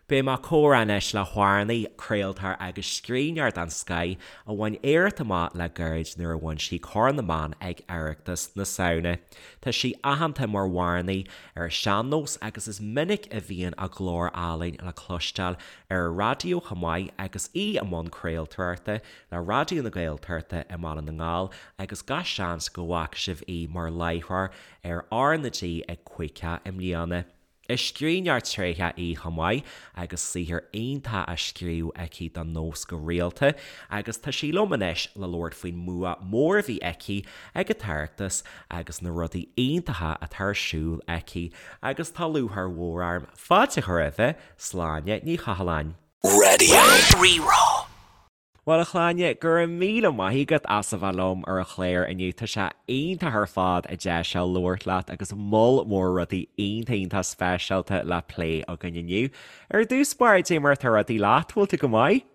Beidh mé ag comhrá anois le hamhránaí, craoltóir agus scríbhneoir den scoith a bhain éacht amach le gairid nuair a bhain sí Corn na mBan ag Oireachtas na Samhna. Tá sí aitheanta mar amhránaí ar an sean-nós agus is minic a bhíonn a glór álainn le cloisteáil ar an raidió chomh maith agus í i mbun craoltóireachta le Raidió na Gaeltachta i mBaile na nGall agus gach seans go bhfaca sibh í mar láithreoir ar R na G ag Caoicheadh i mbliana. Is scríbhneoir tréitheach í chomh maith agus saothar iontach á scríobh aici don nós go rialta agus tá sí liom anois le labhairt faoin mbua mór a bhí aici ag an tOireachtas agus na rudaí iontacha atá ar siúl aici agus tá lúcháir mhór orm fáilte a chur roimhe, Sláine Ní Chathalláin. Radio Rí-Rá. Bhuel, a Shláine, go raibh míle maith agat as a bheith liom ar an chlár inniu. Tá sé iontach ar fad an deis seo labhairt leat agus moll mór rudaí iontach iontach speisialta le plé againn inniu. Ar dtús báire, dé mar atá rudaí leat, bhfuil tú go maith?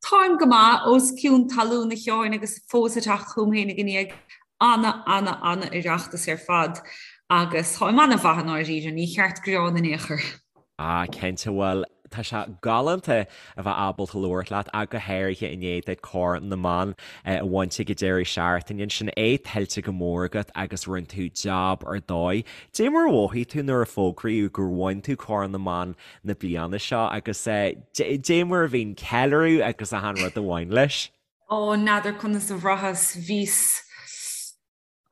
Táim go maith, os cionn talún a Sheáin agus fós ag teacht chugam féinig i ndiaidh ana, ana, ana Oireachtas ar fad agus táim ana-mhaith i ndáiríre, ní cheart gearán in aon chor. Ah, cinnte, bhuel, tá sé galánta a bheith ábalta labhairt leat, ach go háirithe i ndiaidh duit Corn na mBan a bhaint ag an deireadh seachtaine ansin, é tuillte go mór agat agus rinne tú jab ar dóigh. Dé mar a mhothaigh tú nuair a fógraíodh gur bhain tú Corn na mBan na bliana seo agus dé mar a bhí an ceiliúradh agus achan rud a bhain leis? Ó, n'fheadar conas a bhraitheas, bhíos.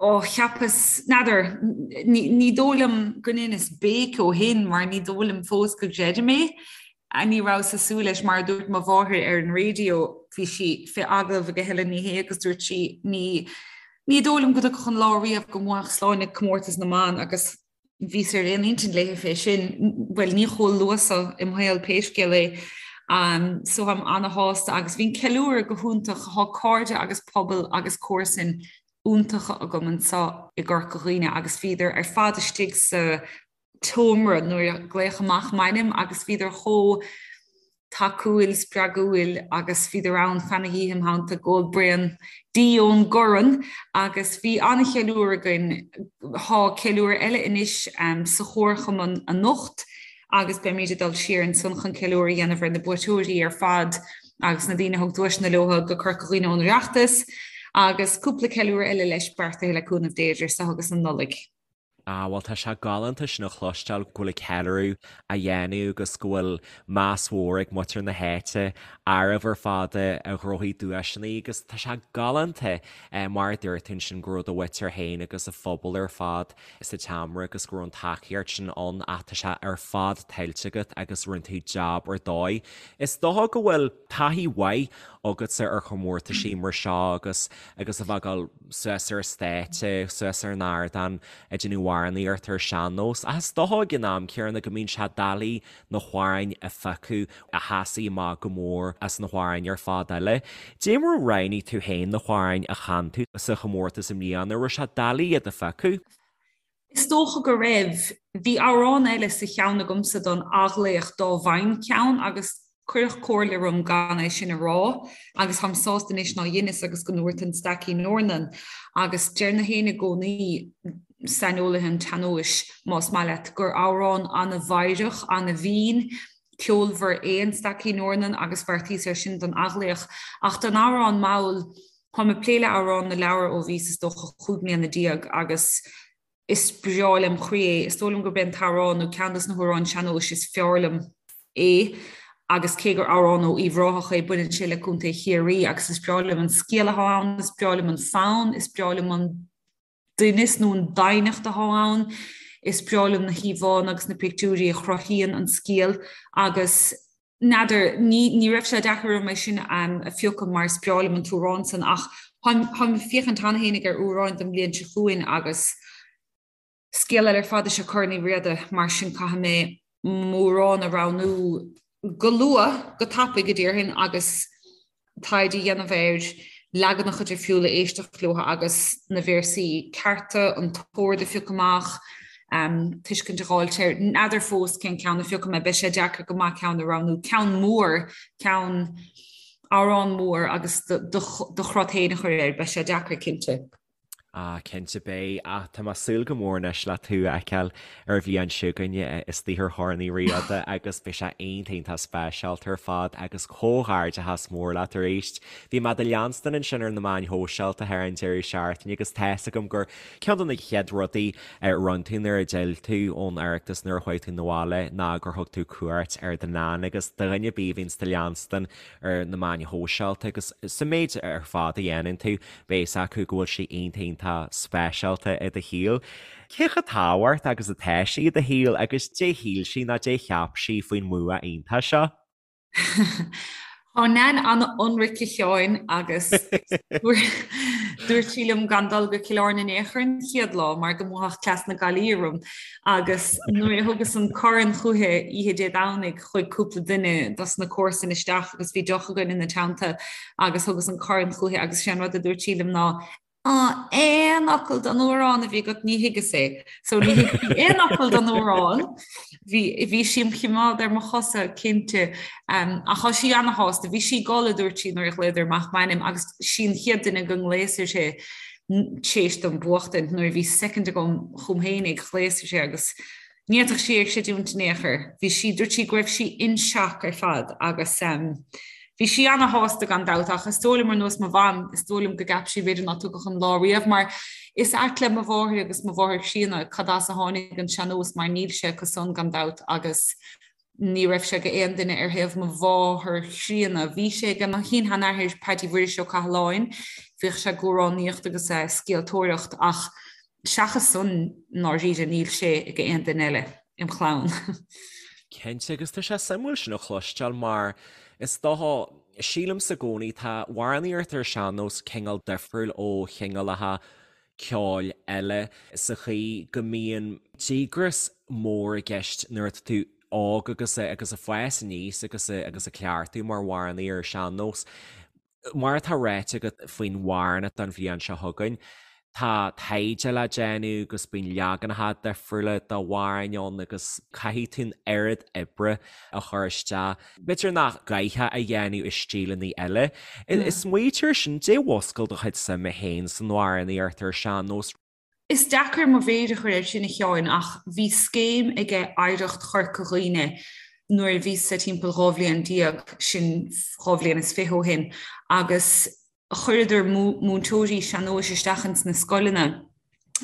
Ó, cheapas, n'fheadar, ní dóigh liom go ndeineas béic ó shin mar ní dóigh liom fós go gcreidim é. Ní rabhas ag súil leis, mar a dúirt mo mháthair ar an raidió, bhí sí fé agallamh ag Helen Ní Shé agus dúirt sí, ní, ní dóigh liom go dtiocfadh an lá riamh go mbuafadh Sláine comórtas na mban agus Bhíos ar aon intinn léi fé sin, bhuel, ní chomh luath so im shaol pé scéal é. So táim ana-shásta agus bhí an ceiliúradh go hiontach, thá cairde agus pobal agus comharsain iontacha agam anso i gCorca Dhuibhne agus bhíodar ar fad istigh sa tseomra nuair a glaodh amach m'ainm agus bhíodar chomh tacúil, spreagúil agus bhíodar ann feadh na hoíche im theannta ag ól braon dí ón gcorn agus bhí an-cheiliúradh againn. Thá ceiliúradh eile anois sa chomharchumann anocht agus beimid ag dul siar ansan chun ceiliúradh a dhéanamh ar na buaiteoirí ar fad agus na daoine a thug duaiseanna leo go Corca Dhuibhne ón Oireachtas agus cúpla ceiliúradh eile leis beartaithe le cúnamh Dé idir seo agus an Nollaig. Ah, bhuel tá sé galánta sin a chloisteáil go bhfuil an ceiliúradh á dhéanamh agus go bhfuil meas mhór ag muintir na háite oraibh ar fad a ghnóthaigh duaiseanna agus tá sé galánta mar a dúirt tú ansin go raibh do mhuintir féin agus an phobal ar fad sa tseomra agus go raibh an tacaíocht sin ann ach tá sé ar fad tuillte agat agus rinne tú jab ar dóigh. Is dócha go bhfuil taithí mhaith agatsa ar chomórtaisí mar seo agus agus a bheith ag dul suas ar an stáitse, suas ar an ardán ag déanamh amhránaíocht ar sean-nós. Ach is dócha ag an am céanna go mbíonn sé doiligh na hamhráin a phiocadh a sheasfaidh amach go mór as na hamhráin ar fad eile. Dé mar a roghnaigh tú féin na hamhráin a chan tú sa chomórtas i mbliana, raibh sé doiligh iad a phiocadh? Is dócha go raibh. Bhí amhrán eile sa cheann agamsa don athghlaoch dá bhfaighinn ceann agus cuireadh comhairle orm gan é sin a rá agus táim sásta anois ná dheineas agus go ndúrt an Staicín Eornan agus deir na héinne i gcónaí, saineolaithe an tsean-nóis más maith leat, gur amhrán ana-mheidhreach, ana-mhín, ceolmhar é an Staicín Eornan agus bheartaíos air sin don athghlaoch. Ach don amhrán mall, Táim ag plé le Amhrán na Leabhar ó bhíos is dócha 15 mbliana agus is breá lem chroí é. Is dóigh liom gurb é an t-amhrán nó ceann dos na hamhráin sean-nóis is fearr liom é agus cé gur amhrán ó Uíbh Ráthach é baineann sé le Contae Chiarraí agus is breá liom an scéal atá ann, is breá liom an fonn, is breá liom an doimhneas nó an doimhneacht atá ann. Is breá liom na híomhánna agus na pictiúirí a chruthaíonn an scéal agus n'fheadar, ní, ní raibh sé deacair orm é sin a phiocadh mar is breá liom an t-amhrán san ach táim, táim ag féachaint cheana féinig ar amhráin don bhliain seo chugainn agus scéal eile ar fad is ea Corn Uí Riada mar sin caithfidh mé m'amhrán a roghnú go luath, go tapaidh a déarfainn agus taighde a dhéanamh air, leaganacha difriúla a éisteacht leo agus na véarsaí cearta, an t-ord a phiocadh amach, tuiscint a dh'fháilt air. N'fheadar fós cén ceann a phiocfaidh mé, beidh sé deacair go maith ceann a roghnú. Ceann mór, ceann, amhrán mór agus do chrot féin a chur air, beidh sé deacair cinnte. Ah, cinnte beidh, ach tá mé ag súil go mór anois le tú a fheiceáil ar an bhliain seo chugainn istigh ar Chorn Uí Riada agus beidh sé iontach iontach speisialta ar fad agus comhghairdeachas mór leat arís. Bhí mé do leanstan ansin ar na meáin shóisialta thar an deireadh seachtaine agus tá's agam gur ceann de na chéad rudaí a rinne tú nuair a d'fhill tú ón Oireachtas nuair a chuaigh tú 'na bhaile ná gur thug tú cuairt ar do Nan agus do dhuine ar bith a bhíonns do leanstan ar na meáin shóisialta agus sa méid ar fad a dhéanann tú, beidh fhios acu go bhfuil sí iontach iontach speisialta i do shaol. Cé chomh tábhachtach agus atá sí i do shaol agus dé shíl sí nó dé cheap sí faoin mbua iontach seo? Tá Nan an-ionraic a Sheáin agus dúirt sí liom gan dul go Cill Airne in aon chor an chéad lá mar go mbuafadh cleas na Gaillimhe orm agus nuair a thugas an corn chúithi oíche Dé Domhnaigh chuaigh cúpla duine dos na comharsain isteach agus bhí deoch againn ina teannta agus thugas an corn chúithi agus sé an rud a dúirt sí liom ná Á, aon fhocal den amhrán a bhí agat ní thuigeas é. So ní thuig sí aon fhocal den amhrán. Bhí bhí sí im chimeád ar mo chosa cinnte. Um, ach tá sí ana-shásta. Bhí sí ag gol a dúirt sí nuair a ghlaodar amach m'ainm agus sí an chéad duine go nglaos uirthi théis dom buachtaint nuair a bhí soicind agam chugam féinig ghlaos uirthi agus Ní fhéadfadh sí é a chreidiúint in aon chor. Bhí sí, dúirt sí go raibh sí in shock ar fad agus bhí sí ana-shásta gan dabht ach is dóigh liom ar nós mo mham, is dóigh liom go gceap sí b'fhéidir ná tiocfadh an lá riamh mar is ait le mo mháthair agus mo mháthair chríonna cad as a tháinig an sean-nós mar níl sé acu san gan dabht agus ní raibh sé ag aon duine ar thaobh mo mháthar chríonna. Bhí sé ag mo shin-sheanathair Paddy Mhuiris Ó Cathaláin, bhíodh sé ag amhránaíocht agus ag scéaltóireacht ach seachas san i ndáiríre níl sé ag aon duine eile im chlann. Cinnte, agus tá sé suimiúil sin a chloisteáil mar is dócha, sílimse i gcónaí, tá amhránaíocht ar sean-nós cineál difriúil ó chineálacha ceoil eile sa chaoi go mbíonn díograis mór i gceist nuair atá tú óg agus agus ag fás aníos agus agus ag cleachtadh mar amhránaí ar sean-nós. Mar atá ráite agat faoin amhrán don bhliain seo chugainn, tá taighde le déanamh agus bíonn leaganacha difriúla d'amhráin ann agus caithfidh tú an oiread oibre a chur isteach. B'fhéidir nach gcaithfeá a dhéanamh i stíleanna eile. Smaoitigh air sin, dé mhúscail do chuid suime féin san amhránaíocht ar sean-nós. Is deacair mo mhéir a chur air sin a Sheáin ach bhí scéim aige Oidhreacht Chorca Dhuibhne nuair a bhíos-sa timpeall 12 bhliain, sin 22 bhliain ó shin, agus chuireadar múinteoirí sean-nóis isteach ins na scoileanna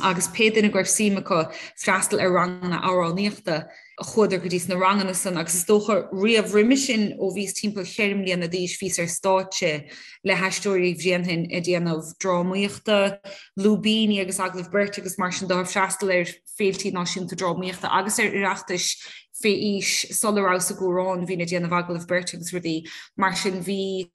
agus pé duine go raibh suim acu freastal ar ranganna amhránaíochta, chuadar go dtí sna ranganna san agus is dócha riamh roimhe sin ó bhíos timpeall cheithre mbliana d'aois bhíos ar stáitse le hAisteoirí Bhréanainn ag déanamh drámaíochta, lúibíní agus agallaimh beirte agus mar sin de, ag freastal ar féiltí náisiúnta drámaíochta agus ar Oireachtais fé aois sula rabhas i gCuarán bhínn ag déanamh agallamh beirte agus rudaí mar sin bhí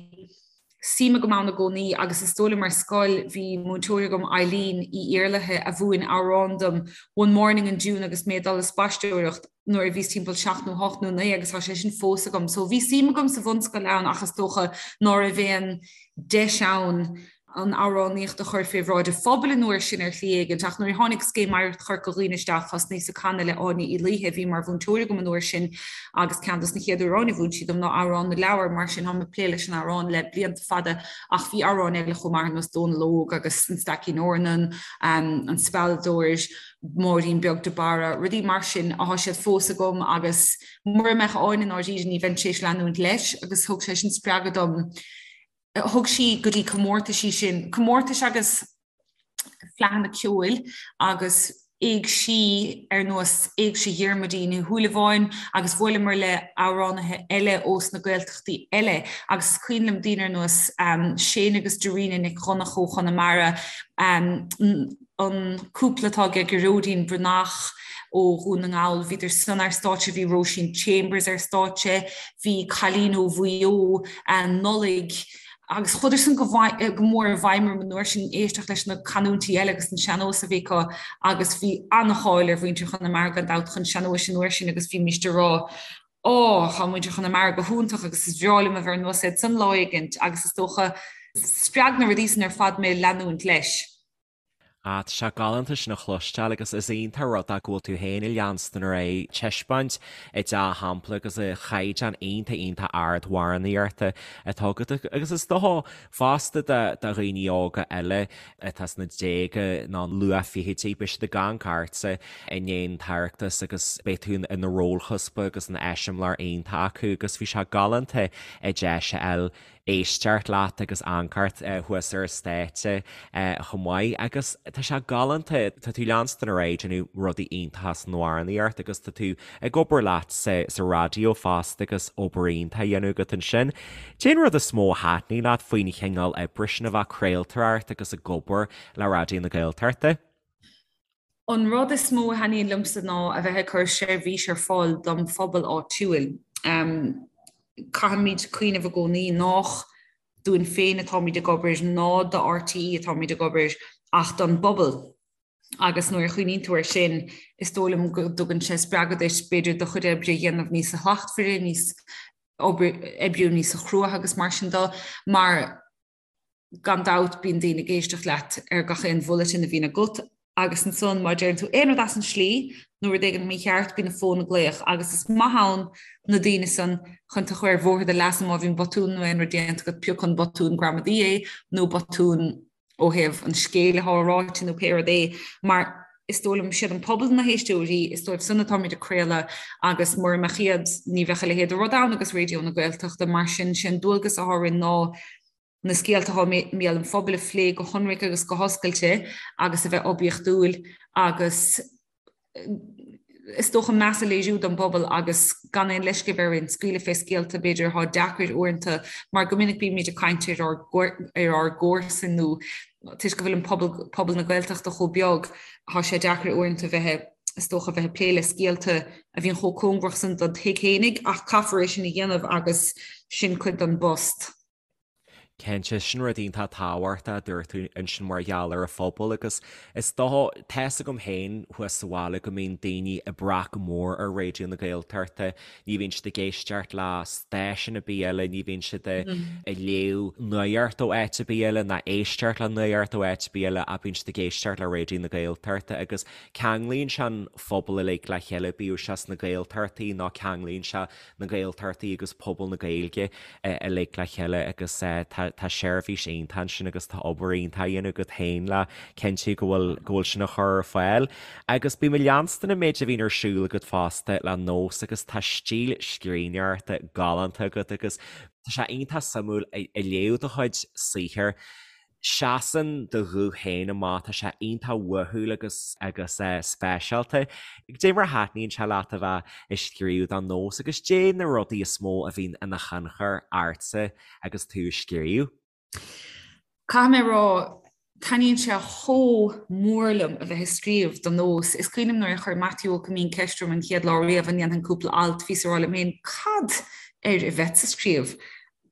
suim agam ann i gcónaí agus is dóigh liom ar scoil bhí múinteoir agam Eileen Uí Iarlaithe a mhúin amhrán dom One Morning in June agus mé ag dul ag spaisteoireacht nuair a bhíos timpeall 7 nó 8 nó 9 agus tá sé sin fós agam. So bhí suim agam sa bhunscoil ann ach is dócha ná raibh aon deis ann an amhránaíocht a chur fé bhráid an phobail an uair sin ar shlí éigint ach nuair a tháinig Scéim Oidhreacht Chorca Dhuibhne isteach thosnaíos ag canadh le Áine Uí Laoithe a bhí mar mhúinteoir agam an uair sin agus ceann dos na chéad amhráin a mhúin sí dom ná Amhrán na Leabhar mar sin táim ag plé leis an amhrán le blianta fada ach bhí amhráin eile chomh maith ar nós Dónal Óg agus An Staicín Eornan, An Spealadóir, Máirín Beag de Barra, rudaí mar sin atá siad fós agam agus mura mbeadh Áine i ndáiríre ní bheinn tar éis leanúint leis agus thug sé sin spreagadh dom Thug sí go dtí comórtaisí sinn, comórtais agus fleadhanna ceoil agus éigsí ar nós Éigse Dhiarmuidín Uí Shúilleabháin agus bhuaileamar le amhránaithe eile ós na Gaeltachtaí eile agus is cuimhin liom daoine ar nós Shane agus Darina Nic Dhonncha ó Chonamara, an cúpla atá aige Gearóidín Breathnach ó Dhún na nGall, bhíodar san ar stáitse, bhí Róisín Chambers ar stáitse, bhí cailín ó Mhaigh Eo, Nollaig, agus chuadar san go mór i bhfeidhm orm an uair sin, éisteacht leis na canúintí eile agus an sean-nós a bhí acu agus bhí an-cháil ar mhuintir Chonamara gan dabht chun sean-nóis an uair sin agus bhímíst ag rá Ó, tá muintir Chonamara go hiontach agus is bhreá liom a bheith ar nós iad san lá éigint agus is dócha spreag na rudaí san ar fad mé leanúint leis. Ah, tá sé galánta sin a chloisteáil agus is iontach rud é go bhfuil tú féin ag leanstan ar aghaidh ag taispeáint an dea-shampla agus an chaighdeán iontach iontach ard amhránaíochta atá agat agus is dócha fosta do dhaoine óga eile atá sna déaga nó luath-fhichidí, beidh siad ag amharc ortsa i ndiaidh an tOireachtas agus beidh tú ina rólchuspa agus ina eiseamláir iontach acu agus bhí sé galánta an deis a fháil éisteacht leat agus amharc ort thuas ar an stáitse chomh maith agus tá sé galánta, tá tú leanstan ar aghaidh ag déanamh rudaí iontacha san amhránaíocht agus tá tú ag obair leat sa sa raidió fosta agus obair iontach á dhéanamh agat ansin. Cén rud is mó a thaitníonn leat faoin chineál oibre sin a bheith ag craoltóireacht agus ag obair le Raidió na Gaeltachta? An rud is mó a thaitníonn liomsa ná a bheith ag cur seirbhís ar fáil dom phobal áitiúil. Caithfimid cuimhneamh i gcónaí nách dúinn féin atáimid ag obair ná do RTÉ atáimid ag obair ach don bpobal. Agus nuair a chuimhníonn tú air sin, is dóigh liom go dtugann sé spreagadh duit b'fhéidir do chuid oibre a dhéanamh níos slachtmhaire, níos oibriú níos cruaidhe agus mar sin de, mar gan dabht bíonn daoine ag éisteacht leat ar gach aon bhulletin a bhíonn agat agus ansan má deireann tú aon rud as an slí nó rud éigin mícheart bíonn an fón ag glaoch agus is maith ann na daoine san chun tú a chur ar bhóthar do leasa má bhíonn botún nó aon rud déanta agat pé acu an botún gramadaí é nó botún ó thaobh an scéil atá ráite nó pé rud é mar is dóigh liom siad an pobal na héisteoirí, is dóibh san atáimid ag craoladh agus mura mbeadh iad ní bheadh a leithéid de rud ann agus Raidió na Gaeltachta mar sin sé an dualgas atá orainn ná na scéalta atá i mbéal an phobail a phlé go hionraic agus go hoscailte agus a bheith oibiachtúil agus is dócha meas a léiriú don bpobal agus gan aon leisce a bheith orainn scaoileadh fé scéalta b'fhéidir atá deacair uaireanta mar go minic bímid ag caint ar ár ar ár gcomharsain nó toisc go bhfuil an pobal pobal na Gaeltachta chomh beag tá sé deacair uaireanta bheith is dócha bheith ag plé le scéalta a bhíonn chomh cóngarach san don tigh fhéinig ach caithfear é sin a dhéanamh agus sin cuid den bpost. Cinnte, sin rud iontach tábhachtach a dúirt tú ansin mar gheall ar an phobal agus is dócha, tá's agam féin thuas sa bhaile go mbíonn daoine ag brath go mór ar Raidió na Gaeltachta, ní bhíonn siad ag éisteacht le stáisiún ar bith eile, ní bhíonn siad ag léamh nuacht ó áit ar bith eile ná éisteacht le nuacht ó áit ar bith eile ach bíonn siad ag éisteacht le Raidió na Gaeltachta agus ceanglaíonn sé an phobal uilig le chéile, bíodh sé sna Gaeltachtaí nó ceanglaíonn sé na Gaeltachtaí agus pobal na Gaeilge uilig le chéile agus tá seirbhís iontach ansin agus tá obair iontach á dhéanamh agat féin le cinntiú go bhfuil go bhfuil sin á chur ar fáil. Agus bím ag leanstan an méid a bhíonn ar siúl agat fosta le Nós agus tá stíl scríbhneoireachta galánta agat agus tá sé iontach suimiúil ag léamh do chuid saothair. Seasann do ghuth féin amach, tá sé iontach uathúil agus agus speisialta. Dé mar a thaitníonn sé leat a bheith ag scríobh do Nós agus dé na rudaí is mó a bhíonn ina thionchar ortsa agus tú ag scríobh? Caithfidh mé a rá, taitníonn sé chomh mór liom a bheith ag scríobh do Nós. Is cuimhin liom nuair a chuir Maitiú Ó Coimín ceist orm an chéad lá riamh an ndéanfainn cúpla alt, bhíos ag rá liom féin, cad air a bheadsa ag scríobh?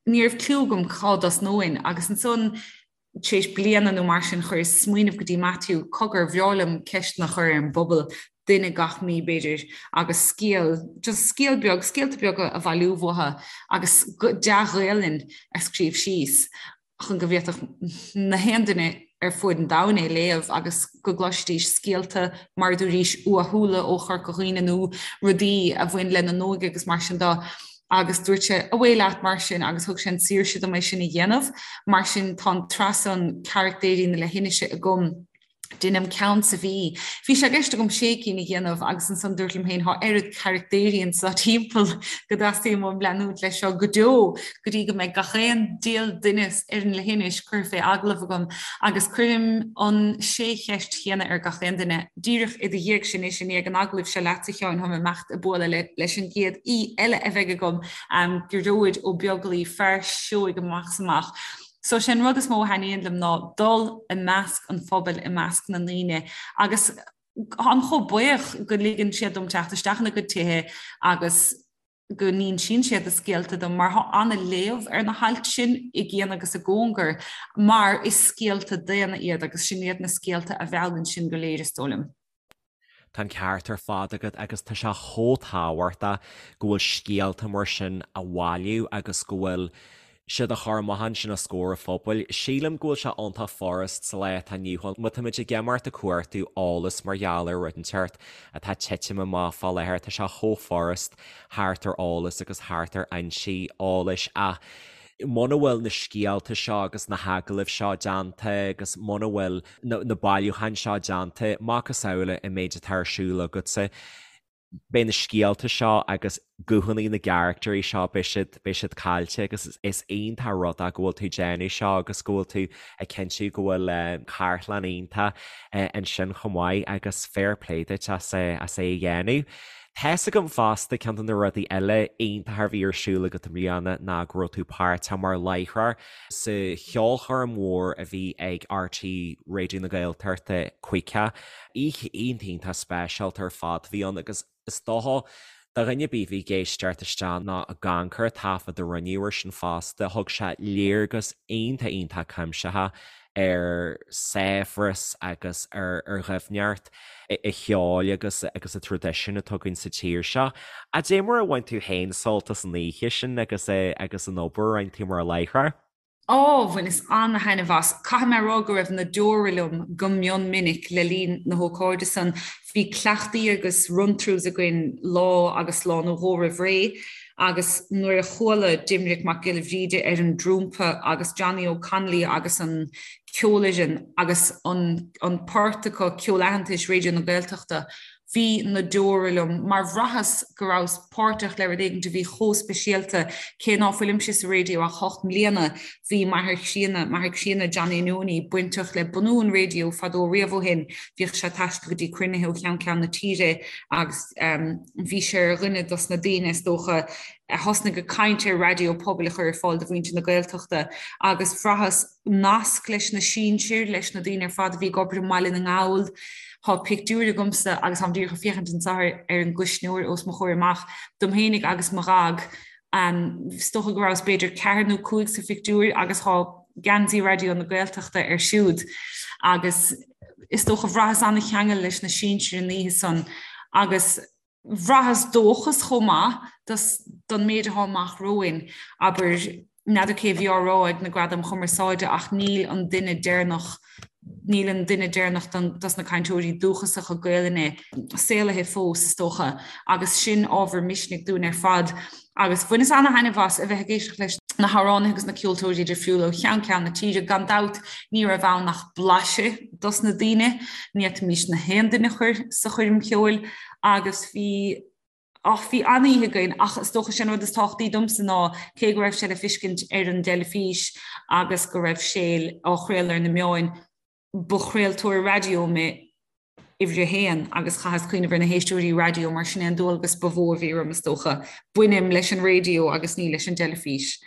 Ní raibh cliú agam cá dtosnóinn agus ansan tar éis bliana nó mar sin chuireas smaoineamh go dtí Matthew, cogar, bhreá liom ceisteanna a chur ar an bpobal, duine gach mí b'fhéidir, agus scéal, just scéal beag, scéalta beaga a bhailiú uathu agus dea-Ghaelainn a scríobh síos chun go bhféadfadh na haon duine ar fuaid an domhain é léamh agus go gcloisfidís scéalta, mar a dúraís, uathúla ó Chorca Dhuibhne nó rudaí a bhain lena n-óige agus mar sin de. Agus dúirt sé, 'Away leat mar sin' agus thug sé an tsaoirse dom é sin a dhéanamh. Mar sin tá an tsraith san Caractéirí na Leithinise agam. Deinim ceann sa mhí. Bhí sé i gceist agam sé cinn a dhéanamh agus ansan dúrt liom féin, thá oiread caractéirí anso timpeall go dteastaíonn uaim leanúint leis seo go deo go dtí go mbeidh gach aon diabhal duine ar an leithinis curtha fé agallamh agam agus cuirim an sé cheist chéanna ar gach aon duine. Díreach i do dhiaidh sin anois, i ndiaidh an agallaimh seo leatsa, a Sheáin, táim ag imeacht ag bualadh leis an gcéad aoi eile a bheidh agam, Gearóid Ó Beaglaoi, fear seoigh amach is amach. So sé an rud is mó a thaitníonn liom ná dul i measc an phobail, i measc na ndaoine agus táim chomh buíoch go ligeann siad dom teacht isteach ina gcuid tithe agus go n-insíonn siad a scéalta dom mar tá an-léamh ar na hailt sin i gcian agus i gcóngar mar is scéalta daonna iad agus sin iad na scéalta a mheallann sinn go léir is dóigh liom. Tá an ceart ar fad agat agus tá sé chomh tábhachtach go bhfuil scéalta mar sin á bhailiú agus go bhfuil. siad a chur amach ansin os comhair an phobail. Sílim go bhfuil sé iontach furast sa lá atá inniu ann. Má táimid ag imeacht ag cuartú eolas mar gheall ar rud inteacht atá ag titim amach fá láthair, tá sé chomh furast theacht ar eolas agus theacht ar fhoinsí eolais ach muna bhfuil na scéalta seo agus na hagallaimh seo déanta agus muna bhfuil na bailiúcháin seo déanta, macasamhail an méid atá ar siúl agatsa, beidh na scéalta seo agus guthanna na gcaractairí seo, beidh siad, beidh siad caillte agus is iontach rud é go bhfuil tú ag déanamh seo agus go bhfuil tú ag cinntiú go bhfuil cartlann iontach ansin chomh maith agus fair play duit as é, as é a dhéanamh. Tá's agam fosta ceann de na rudaí eile iontacha a bhí ar siúl agat i mbliana ná go raibh tú páirteach mar láithreoir sa cheolchoirm mhór a bhí ag RTÉ Raidió na Gaeltachta Caoga Oíche iontach iontach speisialta ar fad a bhí ann agus is dócha do dhuine ar bith a bhí ag éisteacht isteach nó ag amharc ar an taifead a rinneadh air sin fosta, thug sé léargas iontach iontach cuimsitheach ar saibhreas agus ar dhoimhneacht an cheoil agus agus an traidisiúin atá againn sa tír seo. Cad é mar a bhain tú féin sult as an oíche sin agus agus an obair a rinne tú mar láithreoir? Ó, bhaineas an-thaitneamh as. Caithfidh mé a rá go raibh na deora liom go mion minic le linn na hócáide san. Bhí cleachtaí agus run-throughs againn lá agus lá nó dhó roimh ré agus nuair a chuala Doimnic Mac Giolla Bhríde ar an dtrumpa agus Johnny O'Connolly agus an ceolfhoireann agus an an port acu, Ceol Aitheantais Raidió na Gaeltachta, Bhí na deora liom mar bhraitheas go rabhas páirteach le rud éigin a bhí chomh speisialta. Cé ná fuilimse sa raidió ach hocht mbliana, bhí m'athair críonna, m'athair críonna Johnny Nonie, bainteach le bunú an raidió fadó riamh ó shin. Bhíodh sé ag taisteal go dtí cruinnithe ó cheann ceann na tíre agus bhí sé ar dhuine dos na daoine is dócha a thosnaigh ag caint ar raidió pobail a chur ar fáil do mhuintir na Gaeltachta agus bhraitheas nasc leis na sinsir, leis na daoine ar fad a bhí ag obair i mBaile na nGall. Tá pictiúr agamsa agus táim díreach ag féachaint anseo ar an gcuisneoir os mo chomhair amach, dom fhéinig agus mo dhaid. Is dócha go rabhas b'fhéidir ceathair nó cúig sa phictiúr agus tá geansaí Raidió na Gaeltachta air siúd agus is dócha bhraitheas an-cheangal leis na sinsir an oíche san agus Bhraitheas dóchas chomh maith don méid atá amach romhainn. Abair, n'fheadar cé a bhí á rá ag na Gradaim Chumarsáide ach níl an duine deireanach, níl an duine deireanach dos na cainteoirí dúchasacha Gaelainne saolaithe fós, is dócha, agus sin ábhar misnigh dúinn ar fad. Agus bhaineas ana-thaitneamh as a bheith ag éisteacht leis na hamhránaithe agus na ceoltóirí difriúla ó cheann ceann na tíre. Gan dabht, ní raibh ann ach blaiseadh dos na daoine, ní fhéadfaimis na haon duine a chur sa choirm cheoil agus bhí, ach bhí an-oíche againn ach is dócha sé an rud is tábhachtaí domsa ná cé go raibh sé le fiscint ar an dteilifís agus go raibh sé á chraoladh ar na meáin, ba chraoltóir raidió mé uimhir a haon agus chaitheas cuimhneamh ar na héisteoirí raidió mar sin é an dualgas ba mhó a bhí orm is dócha. Bainim leis an raidió agus ní leis an dteilifís.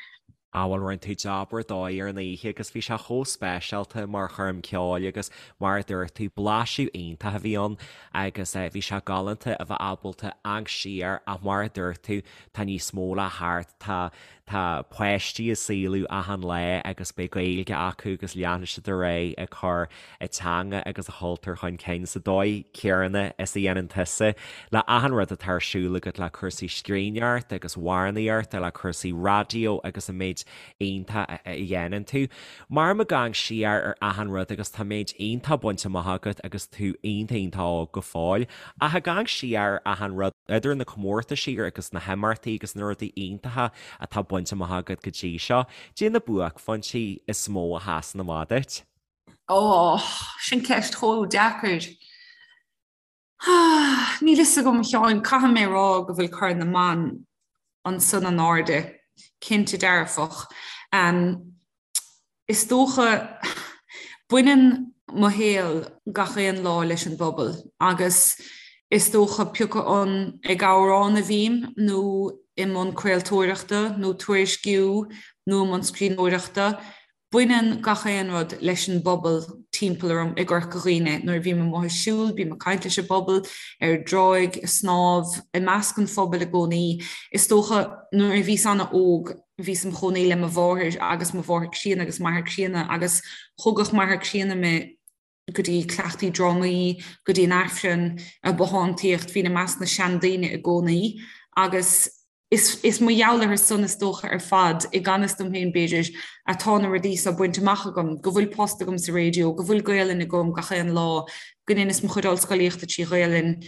Á bhuel rinne tú jab ar dóigh ar an oíche agus bhí sé chomh speisialta mar choirm ceoil agus mar a dúirt tú blaiseadh iontach a bhí ann agus bhí sé galánta a bheith ábalta amharc siar ach mar a dúirt tú tá níos mó le theacht tá Tá páistí á saolú achan lá agus beidh Gaeilge acu agus leanfaidh siad ar aghaidh ag cur a dteanga agus a chultúr chun cinn sa dóigh chéanna is a dhéanann tusa le achan rud atá ar siúl agat le cúrsaí scríbhneoireachta agus amhránaíochta, le cúrsaí raidió agus an méid iontach a dhéanann tú. Mar ag amharc siar ar achan rud agus tá méid iontach bainte amach agat agus tú iontach iontach óg go fóill. Ach ag amharc siar ar achan rud, idir na comórtaisí agus na himeachtaí agus na rudaí iontacha atá bainte amach agat go dtí seo, caidé na buaicphointí is mó a sheasann amach duit? Ó, sin ceist chomh deacair. Níl fhios agam, a Sheáin, caithfidh mé a rá go bhfuil Corn na mBan ansan in airde, cinnte dearfach. Is dócha, baineann mo shaol gach aon lá leis an bpobal agus is dócha pé acu an ag amhrán a bhím nó i mbun craoltóireachta nó tuairisciú nó i mbun scríbhneoireachta, Baineann gach aon rud leis an bpobal timpeall orm i gCorca Dhuibhne. Nuair a bhím amuigh ag siúl, bím ag caint leis an bpobal, ar an dtráigh, ag snámh, i measc an phobail i gcónaí. Is dócha nuair a bhíos ana-óg, bhíos im chónaí le mo mháthair agus mo mháthair críonna agus m'athair críonna agus thugadh m'athair críonna mé go dtí cleachtaí drámaí, go dtí an Aifreann, ag bothántaíocht, bhínn i measc na seandaoine i gcónaí agus. Is is mar gheall orthu san is dócha ar fad, i gan fhios dom féin b'fhéidir, atá na rudaí so bainte amach agam, go bhfuil post agam sa raidió, go bhfuil Gaelainn agam gach aon lá, go ndeineas mo chuid ollscolaíochta trí Ghaelainn,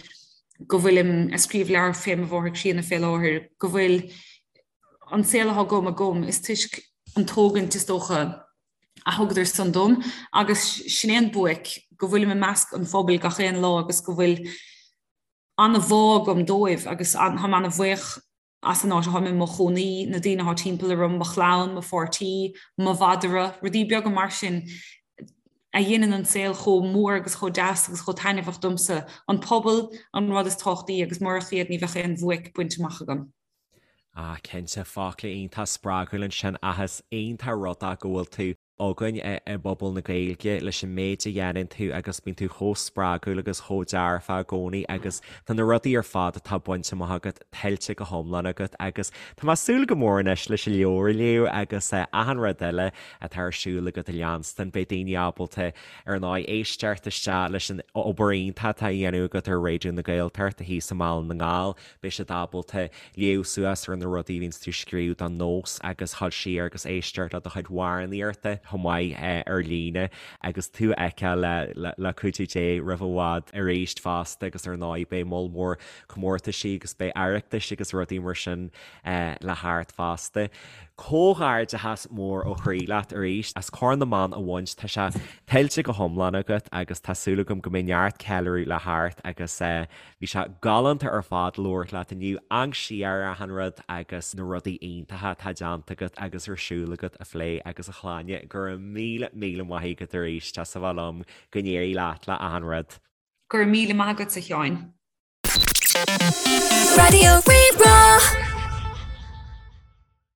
go bhfuilim a' scríobh leabhar fé mo mháthair chríonna fé láthair, go bhfuil an saol atá agam agam, is toisc an tógaint is dócha a thugadar san dom agus sin é an buaic, go bhfuilim i measc an phobail gach aon lá agus go bhfuil an-bhá agam dóibh agus táim an-bhuíoch as an áit atáim i mo chónaí, na daoine atá timpeall orm, mo chlann, mo pháirtí, mo mhadra, rudaí beaga mar sin a dhéanann an saol chomh mór agus chomh deas agus chomh taitneamhach domsa. An pobal an rud is tábhachtaí agus murach iad ní bheadh aon bhuaic bainte amach agam. Ah cinnte, focla iontach spreagúil ansin ach is iontach an rud é go bhfuil tú againn i bpobal na Gaeilge leis an méid a dhéanann tú agus bíonn tú chomh spreagúil agus chomh dearfach i gcónaí agus tá na rudaí ar fad atá bainte amach agat tuillte go hiomlán agat agus tá mé ag súil go mór anois leis an leabhar a léamh agus achan rud eile atá ar siúl agat a leanstan. Beidh daoine ábalta ar ndóigh éisteacht isteach leis an obair iontach atá á dhéanamh agat ar Raidió na Gaeltachta thíos i mBaile na nGall. Beidh siad ábalta léamh suas ar na rudaí a bhíonns tú ag scríobh don Nós agus dhul siar agus éisteacht le do chuid amhránaíochta chomh maith ar líne agus tú a fheiceáil le cuidiú Dé roimh i bhfad arís fosta agus ar ndóigh beidh moll mór comórtaisí agus beidh Oireachtais agus rudaí mar sin le theacht fosta. Comhghairdeachas mór ó chroí leat arís as Corn na mBan a bhaint, tá sé tuillte go hiomlán agat agus tá súil agam go mbeidh neart ceiliúradh le theacht agus Bhí sé galánta ar fad labhairt leat inniu, amharc siar ar achan rud agus na rudaí iontacha atá déanta agat agus ar siúl agat a phlé agus a Shláine. Go raibh míle míle maith agat arís as a bheith liom. Go n-éirí leat le achan rud. Go raibh míle maith agatsa, a Sheáin. Raidió Rí-Rá.